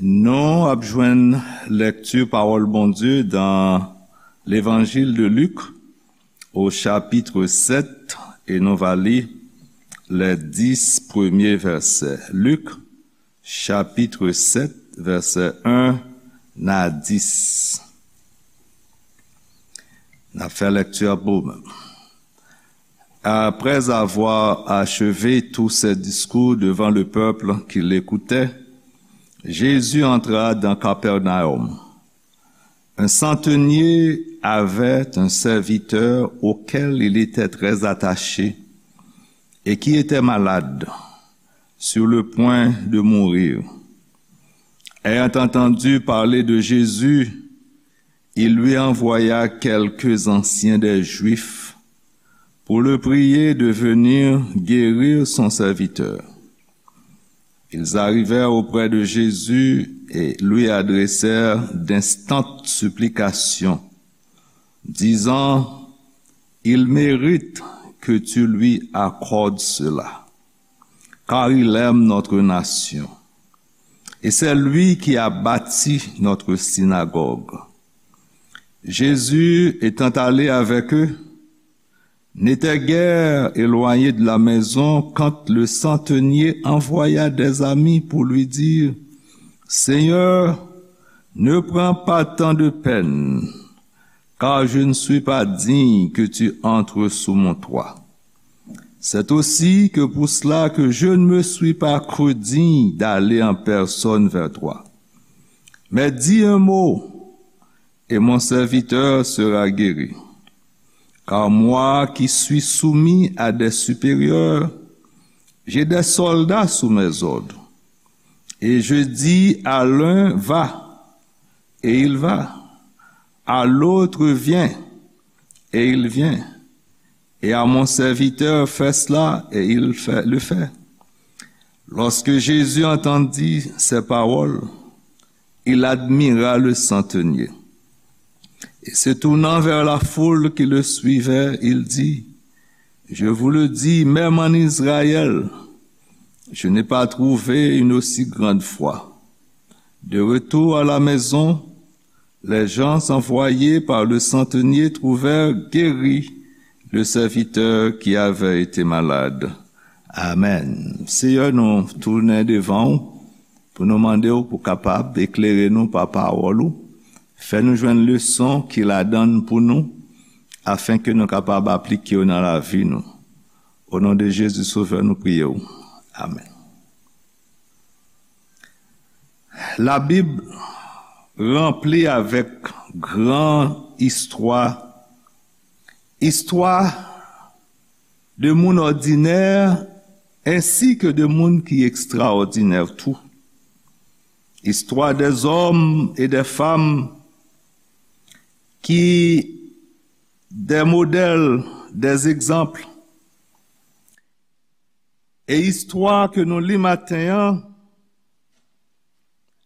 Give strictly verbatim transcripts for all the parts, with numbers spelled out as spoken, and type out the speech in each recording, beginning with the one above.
Nou ap jwenn lèkti pawòl Bondye dan Levanjil de Lik, o chapit sèt, e nou va li lè dis premye vèsè. Lik, chapit sèt, vèsè en a dis. N ap fè lèkti a pou ou menm. Après avoir achevé tous ses discours devant le peuple qui l'écoutait, Jésus entra dans Capernaum. Un centenier avait un serviteur auquel il était très attaché et qui était malade, sur le point de mourir. Ayant entendu parler de Jésus, il lui envoya quelques anciens des Juifs pour le prier de venir guérir son serviteur. Ils arrivèrent auprès de Jésus et lui adressèrent d'instantes supplications, disant : « Il mérite que tu lui accordes cela, car il aime notre nation. Et c'est lui qui a bâti notre synagogue. » Jésus, étant allé avec eux, n'était guère éloigné de la maison quand le centenier envoya des amis pour lui dire : « Seigneur, ne prends pas tant de peine, car je ne suis pas digne que tu entres sous mon toit. C'est aussi que pour cela que je ne me suis pas cru digne d'aller en personne vers toi. Mais dis un mot, et mon serviteur sera guéri. Car moi qui suis soumis à des supérieurs, j'ai des soldats sous mes ordres. Et je dis à l'un : va, et il va. À l'autre : viens, et il vient. Et à mon serviteur : fais cela, et il fait, le fait. » Lorsque Jésus entendit ces paroles, il admira le centenier. Et se tournant vers la foule qui le suivait, il dit : « Je vous le dis, même en Israël, je n'ai pas trouvé une aussi grande foi. » De retour à la maison, les gens envoyés par le centenier trouvèrent guéri le serviteur qui avait été malade. Amèn. Seyè, nou tounen devan ou pou nou mande w pou kapab eklere nou pa pawòl ou. Fè nou jwenn leson ki ladan l pou nou, afenke nou kapab aplike yo nan lavi nou. O non de Jezi Sovè, nou priye w. Amèn. Labib ranpli avèk gran istwa, istwa de moun òdinè, ensi ke de moun ki ekstraòdinè tou. Istwa dè zòm e dè fanm ki dè modèl, dè egzanp. E istwa ke nou li maten an,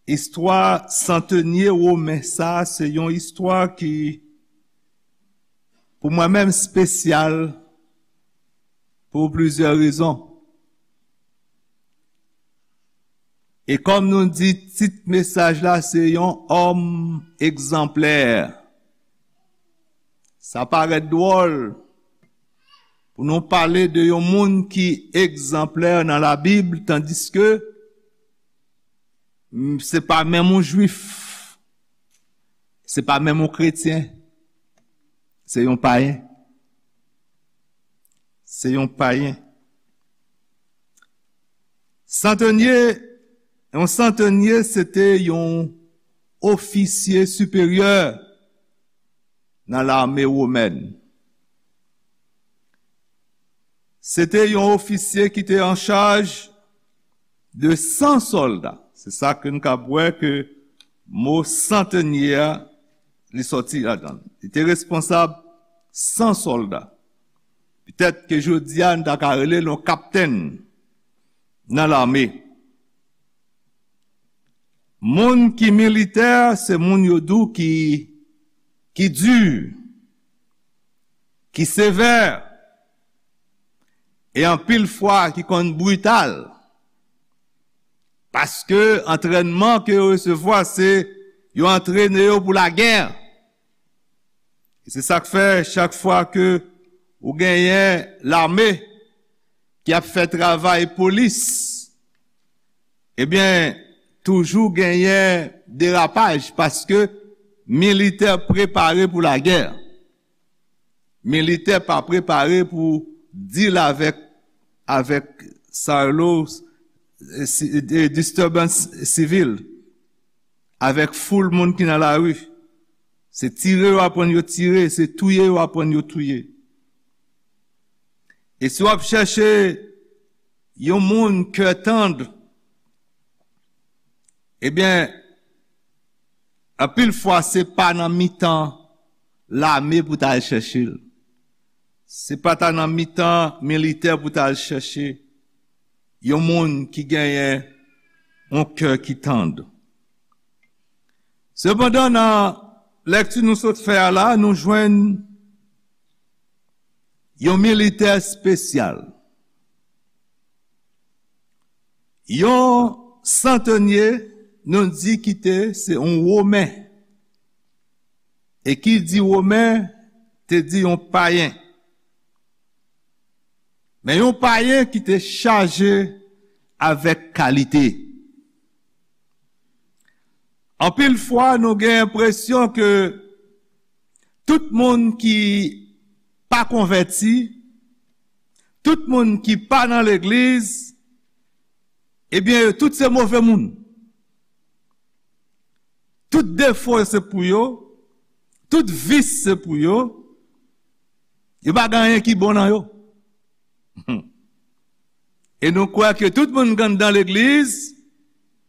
istwa santenye women sa, se yon istwa ki, pou mwen menm, espesyal pou plizyè rezon. E kòm nou di, tit mesaj la se yon òm egzanplè. Sa parèt dwòl pou nou pale de yon moun ki egzanplè nan Labib, tandiske, m, se pa menm yon jwif, se pa menm yon kretyen, se yon payen. Se yon payen. Santenye, yon santenye, se te yon ofisye siperyè nan lame womèn. Se te yon ofisye ki te an chaj de san sòlda. Se sa ke n kab wè ke mo santenye a, li sòti ladan l. Li te responsab san sòlda. Petèt ke jodi a, n ta ka rele l yon kaptenn nan lame. Moun ki militè, se moun yo di w ki, ki di, ki sevè, e anpil fwa ki konn brital. Paske antrènman ke yo resevwa, se yo antrene yo pou lagè. E se sa k fè, chak fwa ke ou genyen lame ki ap fè travay polis, ebyen, toujou genyen derapaj, paske militè prepare pou lagè. Militè pa prepare pou deal avèk, avèk sa yo rele, e, si-, e, disturbance sivil, avèk foul moun ki nan lari. Se tire yo aprann yo tire, se touye yo aprann yo touye. E si w ap chèche yon moun kè tann, ebyen, anpil fwa se pa nan mitan lame pou ta al chèche l. Se pa ta nan mitan militè pou ta al chèche yon moun ki genyen yon kè ki tann. Sepandan, nan lèkti nou sot fè a la, nou jwenn yon militè espesyal. Yon santonye, nou di ki te, se yon Women. E ki di Women, te di yon payen. Men yon payen ki te chaje avèk kalite. Anpil fwa, nou gen enpresyon ke tout moun ki pa konvèti, tout moun ki pa nan legliz, ebyen, yo tout se move moun. Tout defo se pou yo, tout vis se pou yo, yo pa gen anyen ki bon nan yo. E nou kwè ke tout moun k anndan legliz,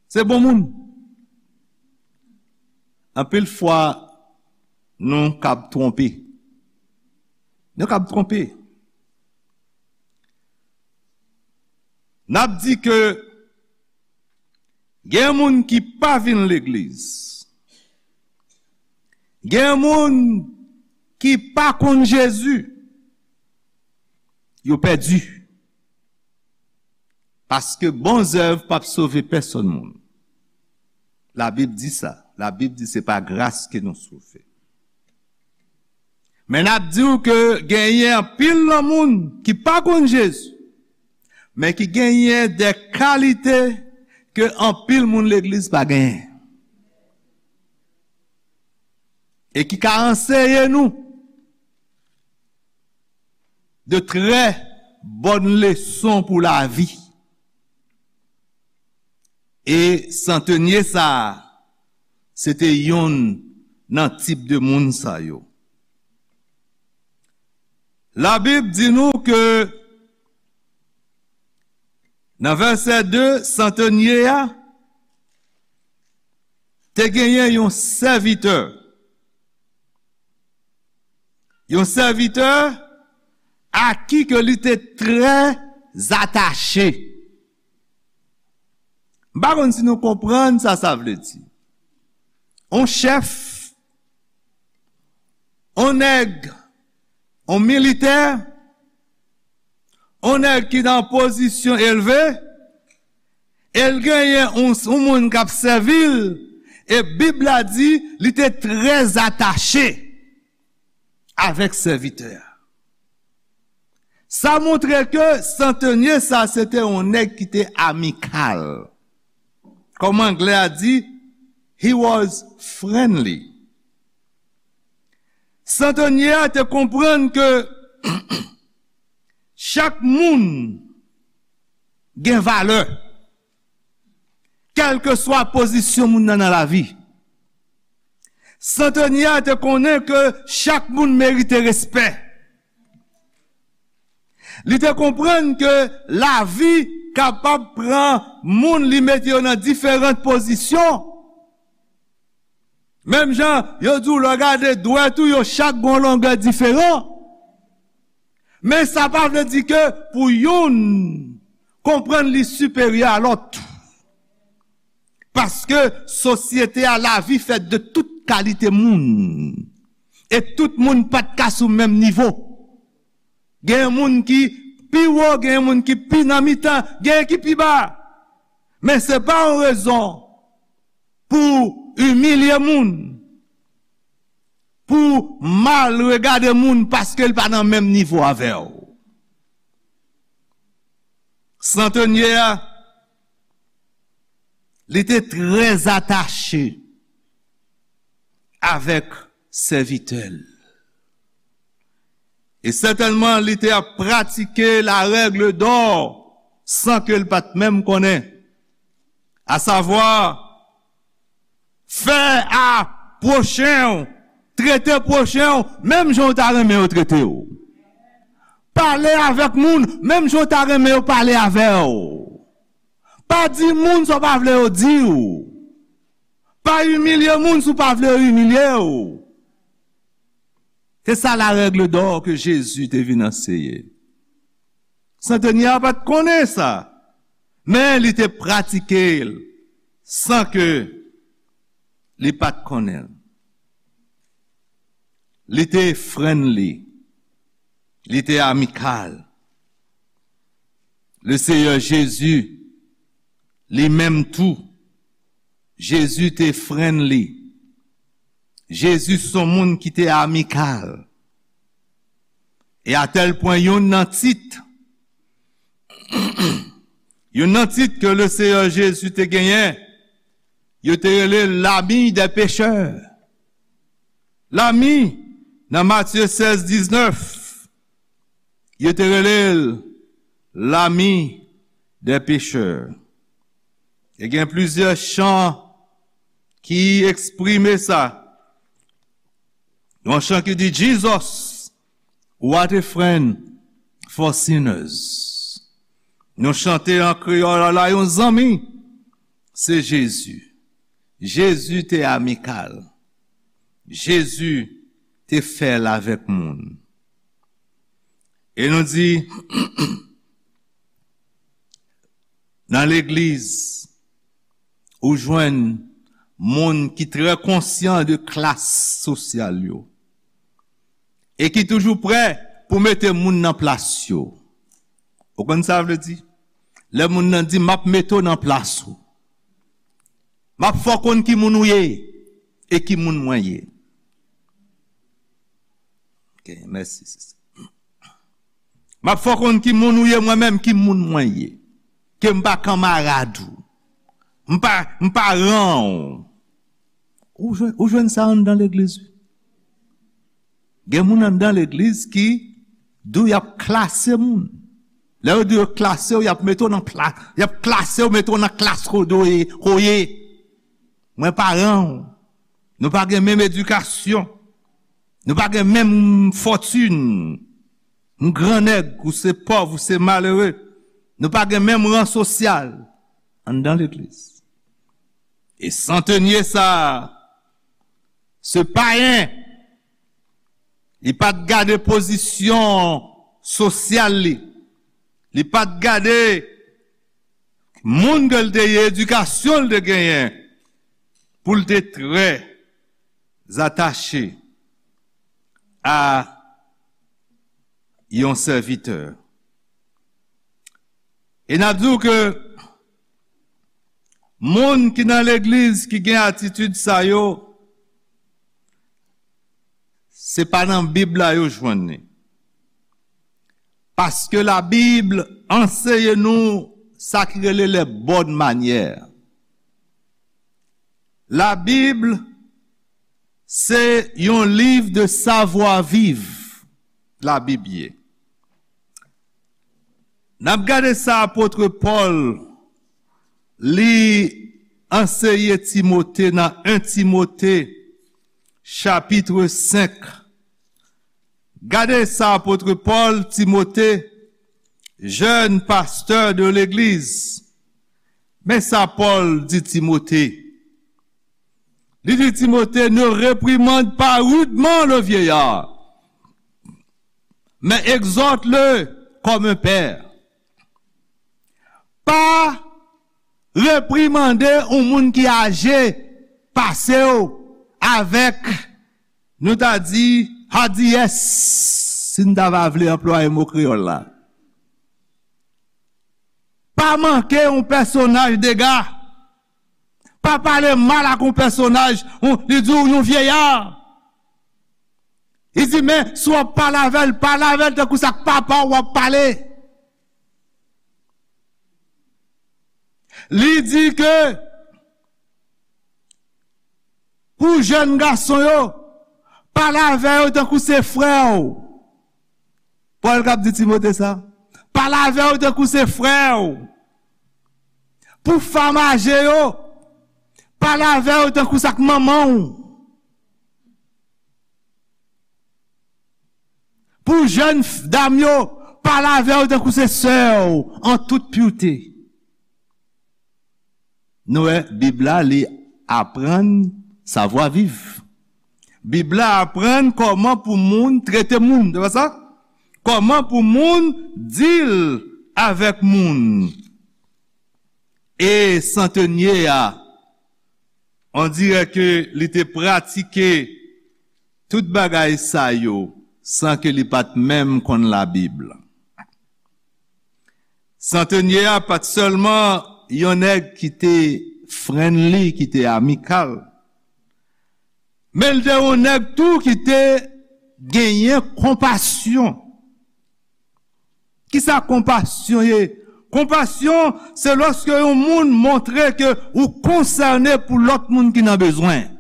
se bon moun. Anpil fwa, nou kab twonpe. Nou kab twonpe. N ap di ke gen moun ki pa vin legliz. Gen moun ki pa konn Jezi. Yo pèdi. Paske bon zèv p ap sove pèsonn moun. Labib di sa. Labib di se pa gras ke nou sove. Men n ap di w ke genyen anpil nan moun ki pa konn Jezi, men ki genyen de kalite ke anpil moun legliz pa genyen. E ki ka anseye nou de trè bòn leson pou lavi. E santonye sa a, se te yonn nan tip de moun sa yo. Labib di nou ke nan vèsè de, santonye a te genyen yon sèvitè. Yon sèvitè a ki ke li te trè atache. M pa konn si nou konprann sa sa vle di. On chèf, on nèg, on militè, on nèg ki nan pozisyon elve, e l genyen on, on moun k ap sèvi l, e Bib la di li te trè atache avèk sèvitè a. Sa montre ke santonye sa se te yon nèg ki te amikal. Kòm anglè a di, he was friendly. Santonye a te konprann ke chak moun gen valè, kèlkeswa pozisyon moun nan nan lavi. Santonye a te konnen ke chak moun merite respè. Li te konprann ke lavi kapab pran moun, li mete yo nan diferan pozisyon. Menm jan yo di w, lè w gade dwèt ou, yo chak gen yon longè diferan. Men sa pa vle di ke pou youn konprann li siperyè a lòt. Paske sosyete a, lavi fèt de tout kalite moun. E tout moun pa t ka sou menm nivo. Gen moun ki pi wo, gen moun ki pi nan mitan, gen ki pi ba. Men se pa yon rezon pou imilye moun, pou mal regade moun paske l pa nan menm nivo avè w. Santonyè a, li te trè atache avèk sèvitè l. E sètènman, li te ap pratike la règle d'or san ke l pa t menm konnen. Asavwa, fè a pwochen w, trete pwochen w menm jan w ta renmen yo trete w. Pale avèk moun menm jan w ta renmen yo pale avè w. Pa di moun sa w pa vle yo di w. Pa imilye moun si w pa vle yo imilye w. Se sa la règle d'or ke Jezi te vin anseye. Santonyè a pa t konnen sa, men li te pratike l san ke li pa t konnen l. Li te friendly, li te amikal. Le Seyè Jezi, li menm tou, Jezi te friendly. Jezi se yon moun ki te amikal. E a tèl pwen, youn nan tit, youn nan tit ke le Seyè Jezi te genyen, yo te rele l l'ami des pécheurs. L'ami, nan Matye sèz diznèf, yo te rele l l'ami des pécheurs. E gen plizyè chan ki eksprime sa. Yon chan ki di, "Jesus, what a friend for sinners." Nou chante an kreyòl la, "Yon zanmi, se Jezi." Jezi te amikal. Jezi te fè l avèk moun. E nou di, nan legliz, ou jwenn moun ki trè konsyan de klas sosyal yo e ki toujou prè pou mete moun nan plas yo. Ou konn sa vle di? Lè moun nan di, "M ap mete w nan plas ou. M ap fè w konn ki moun ou ye e ki moun mwen ye." Ok, mèsi, sista. "M ap fè w konn ki moun ou ye, mwen menm, ki moun mwen ye. Ke m pa kanmarad ou. M pa, m pa ran ou." Ou jwenn, ou jwenn sa anndan legliz, wi. Gen moun anndan legliz ki di w y ap klase moun. Lè yo di yo klase w, y ap mete w nan pla-, y ap klase w, mete w nan klas kote w ye, kote w ye. Mwen pa ran w. Nou pa gen menm edikasyon. Nou pa gen menm fòtin. M grannèg, ou se pòv, ou se malere. Nou pa gen menm ran sosyal anndan legliz. E Santonyè sa, se payen, li pa t gade pozisyon sosyal li. Li pa t gade moun ke l te ye, edikasyon l te genyen, pou l te trè atache a yon sèvitè. E n ap di w ke moun ki nan legliz ki gen atitid sa yo, se pa nan Bib la yo jwenn li. Paske Labib anseye nou sa ki rele les bonnes manières. Labib se yon liv de savoir vivre, Labib ye. N ap gade sa apot Pòl li anseye Timote nan en Timote chapit senk. Gade sa apot Pòl, Timote, jèn pastè de legliz. Men sa Pòl di Timote. Li di Timote, ne réprimande pas rudement le vieillard, mais exhorte-le comme un père. Pa reprimande yon moun ki aje pase w avèk, nou ta di, hadiyès, si n ta va vle anplwaye mo kreyòl la. Pa manke yon pèsonaj dega. Pa pale mal ak yon pèsonaj, yon, li di w yon vyeyè. Li di, men, si w ap pale avè l, pale avè l tankou sa k papa w w ap pale. Li di ke pou jèn gason yo, pale avè yo tankou se frè w. Pòl k ap di Timote sa. Pale avè yo tankou se frè w. Pou fanm aje yo, pale avè yo tankou sa k manman w. Pou jèn f-, dam yo, pale avè yo tankou se sè w, an tout purite. Nou wè, Bib la, li aprann savwa viv. Bib la aprann kòman pou moun trete moun, se pa sa? Kòman pou moun deal avèk moun. E santenye a, on dirè ke li te pratike tout bagay sa yo san ke li pa t menm konn Labib. Santenye a pa t sèlman yon nèg ki te friendly, ki te amikal, men l te yon nèg tou ki te genyen konpasyon. Kisa konpasyon ye? Konpasyon, se lòske yon moun montre ke ou konsène pou lòt moun ki nan bezwen.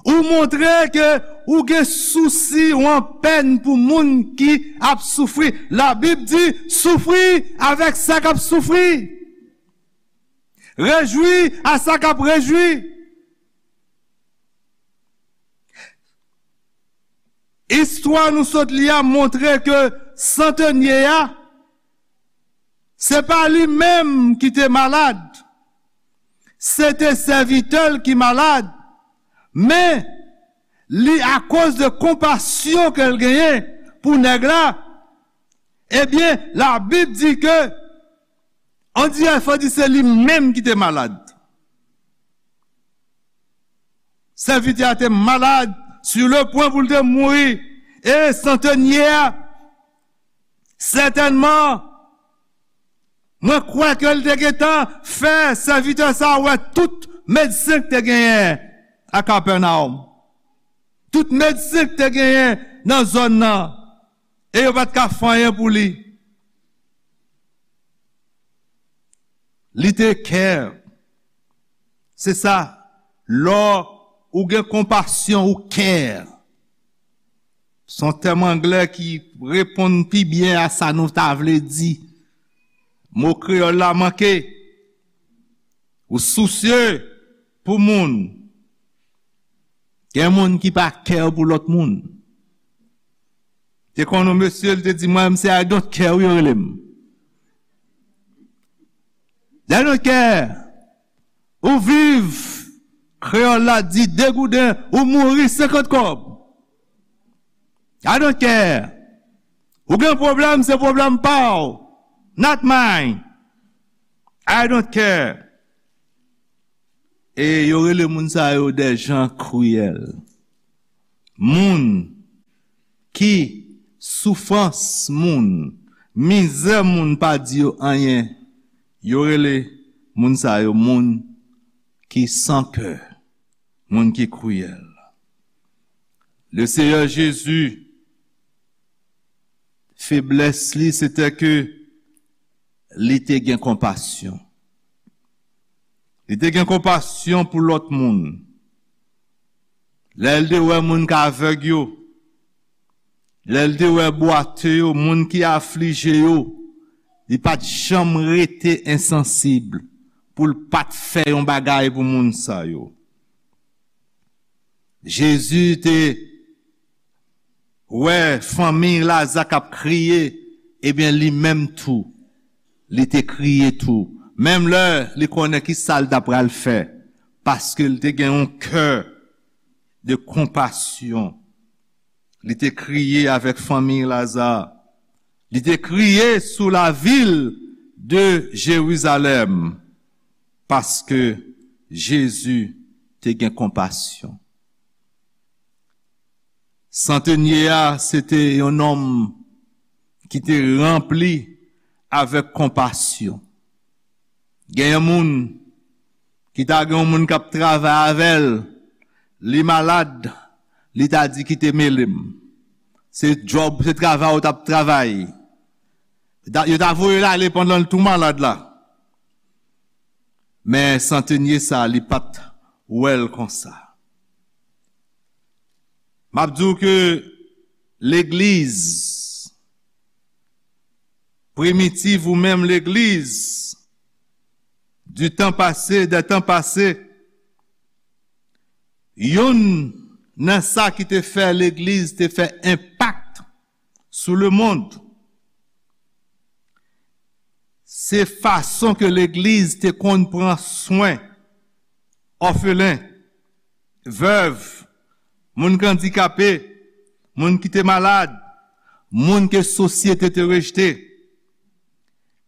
Ou montre ke ou gen sousi, ou an pèn pou moun ki ap soufri. Labib di, soufri avèk sa k ap soufri. Rejwi a sa k ap rejwi. Istwa nou sot li a montre ke santenye a, se pa li menm ki te malad, se te sèvitè l ki malad, men li, akoz de konpasyon ke l genyen pou nèg la, ebyen, Labib di ke, on dirè fò di se li menm ki te malad. Sèvitè a te malad, sur le point pou l te mouri. E santenye a, sètènman, mwen kwè ke l te gentan fè sèvitè sa a wè tout medsen k te genyen a Kapènawòm. Tout medsen k te genyen nan zòn nan. E yo pa t ka fè anyen pou li. Li te care. Se sa, lè ou gen konpasyon, ou care. Se yon tèm anglè ki reponn pi byen a sa nou ta vle di. Mo kreyòl la manke. Ou sousye pou moun. Gen moun ki pa care pou lòt moun. Te konn yon mesye, li te di, mwen, se I don't care, wi, yo rele m. I don't care. Ou viv, kreyòl la di, degouden, ou mouri, senkant kòb. I don't care. Ou gen pwoblèm, se pwoblèm pa w. Not mine. I don't care. E yo rele moun sa yo des gens cruels. Moun ki soufrans moun, mizè moun pa di yo anyen. Yo rele moun sa yo moun ki san kè, moun ki kriyèl. Le Seyè Jezi, feblès li, se te ke li te gen konpasyon. Li te gen konpasyon pou lòt moun. Lè l te wè moun k avèg yo, lè l te wè bwate yo, moun ki aflije yo, li pa t janm rete ensansib pou l pa t fè yon bagay pou moun sa yo. Jezi te wè fanmi Laza k ap kriye, ebyen, li menm tou, li te kriye tou. Menm lè li konnen ki sa l ta pral fè, paske li te gen yon kè de konpasyon. Li te kriye avèk fanmi Laza. Li te kriye sou lavil de Jerizalèm, paske Jezi te gen konpasyon. Santenye a, se te yon nonm ki te ranpli avèk konpasyon. Gen yon moun ki ta gen yon moun k ap travay avè l, li malad, li ta di, "Kite mele m." Se djòb, se travay ou t ap travay. Yo ta, yo ta voye l ale pandan l tou malad la. Men santenye sa, li pa t wè l konsa. M ap di w ke legliz primitiv ou menm legliz du temps passé, des temps passés, youn nan sa ki te fè legliz te fè enpak sou lemonn, se fason ke legliz te konn pran swen òfelen, vèv, moun k andikape, moun ki te malad, moun ke sosyete te rejte.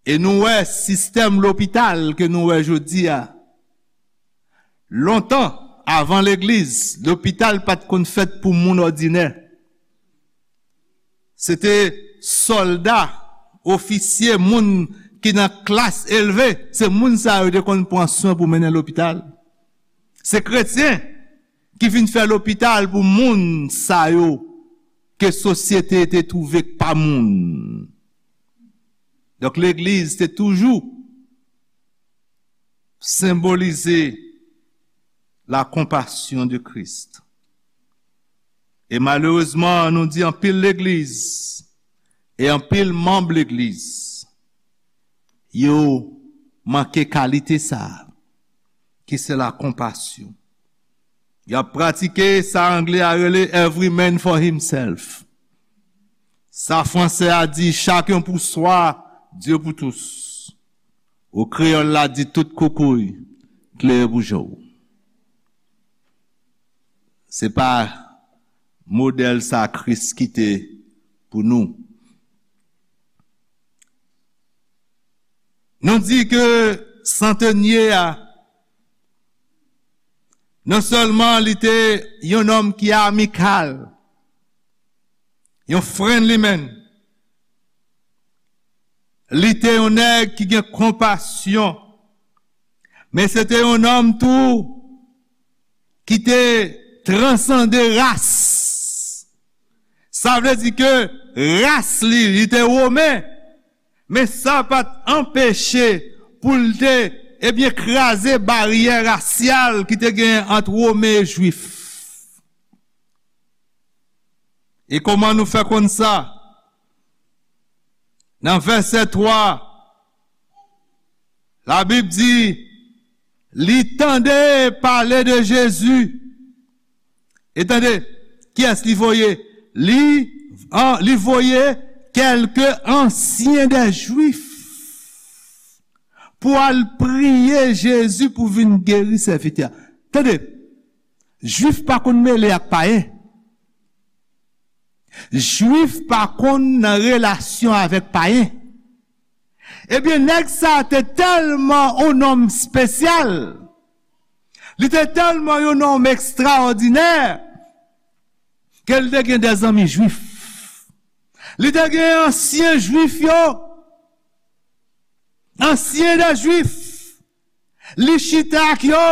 E nou wè sistèm lopital ke nou wè jodi a. Lontan, avan legliz, lopital pa t konn fèt pou moun òdinè. Se te sòlda, ofisye, moun ki nan klas elve, se moun sa yo te konn pran swen pou mennen lopital. Se kretyen ki vin fè lopital pou moun sa yo ke sosyete te twouve k pa moun. Donk, legliz te toujou senbolize la compassion de Christ. E malerezman, nou di anpil legliz e anpil manm legliz, yo manke kalite sa a, ki se la konpasyon. Y ap pratike sa angle a rele "every man for himself". Sa franse a di "chacun pour soi, Dieu pour tous". Ou kreyòl la di "tout koukouy klere pou je w". Se pa modèl sa Kris kite pou nou. Nou di ke santenye a, non sèlman li te yon nonm ki amikal, yon friendly man, li te yon nèg ki gen konpasyon, men se te yon nonm tou ki te transande ras. Sa vle di ke ras li, li te women, men sa pa t anpeche pou l te, ebyen, kraze baryè rasyal ki te genyen ant women e jwif. E kòman nou fè konn sa? Nan vèsè twa, Labib di, li tande pale de Jezi. E tande, kiyès li voye? Li, an, li voye kèlke ansyen dè Jwif pou al priye Jezi pou vin geri sèvitè a. Tande, Jwif pa konn mele ak payen. Jwif pa konn nan relasyon avèk payen. Ebyen, nèg sa a te tèlman yon nonm espesyal, li te tèlman yon nonm ekstraòdinè, ke l te gen dè zanmi jwif. Li te gen ansyen jwif yo, ansyen dè jwif. Li chita ak yo.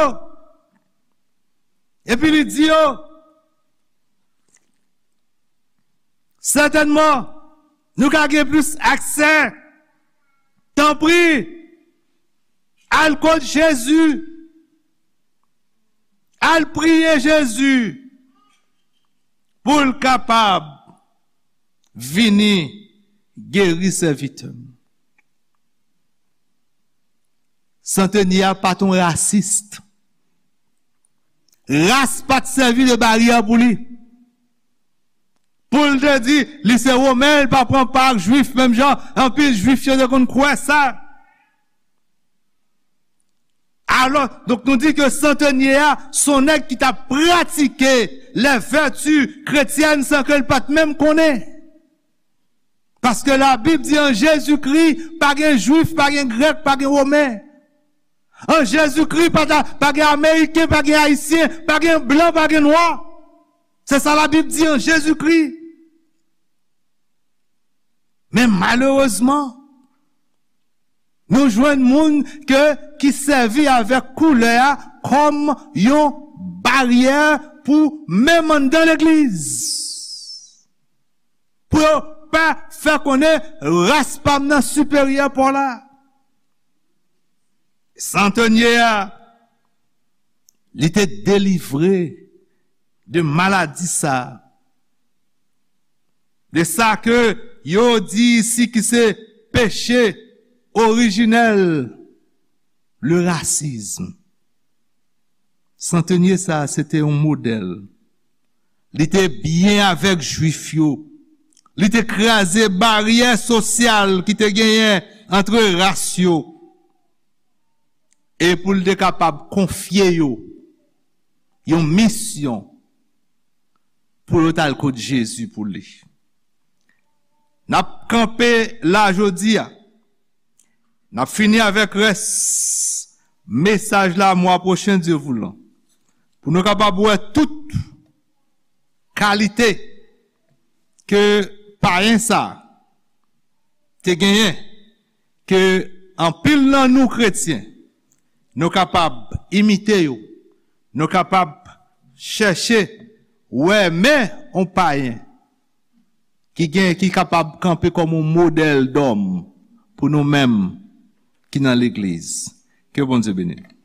Epi li di yo, sètènman, nou ka gen plis aksè. Tanpri, al kot Jezi. Al priye Jezi pou l kapab vini geri sèvitè m. Santenye a pa t yon rasis. Ras pa t sèvi de baryè pou li. Pou l te di, li se women, li pa pran pa ak jwif, menm jan anpil jwif yo te konn kwè sa. Alò, donk nou di ke santenye a, se yon nèg ki t ap pratike les vertus chrétiennes san ke l pa t menm konnen. Paske Labib di an Jezikri, pa gen jwif, pa gen grèk, pa gen women. An Jezikri, pa ta, pa gen ameriken, pa gen ayisyen, pa gen blan, pa gen nwa. Se sa Labib di an Jezikri. Men malerezman, Nou jwenn moun ke, ki sèvi avèk koulè a kòm yon baryè pou menm anndan legliz. Pou yo pa fè konnen ras pa m nan siperyè pa w la. Santanye a, li te delivre de maladi sa a. De sa ke yo di isi ki se peche orijinèl, le racisme. Santanye sa a, se te yon modèl. Li te byen avèk Jwif yo. Li te kraze baryè sosyal ki te genyen antre ras yo. E pou l te kapab konfye yo yon misyon pou yo t al kot Jezi pou li. N ap kanpe la jodi a. N ap fini avèk rès mesaj la mwa pwochen, Dye voulan. Pou nou kapab wè tout kalite ke payen sa te genyen, ke anpil nan nou kretyen, nou kapab imite yo, nou kapab chèche wè men yon payen ki gen, ki kapab kanpe kòm yon modèl dòm pou nou menm ki nan legliz. Ke Bondye beni nou.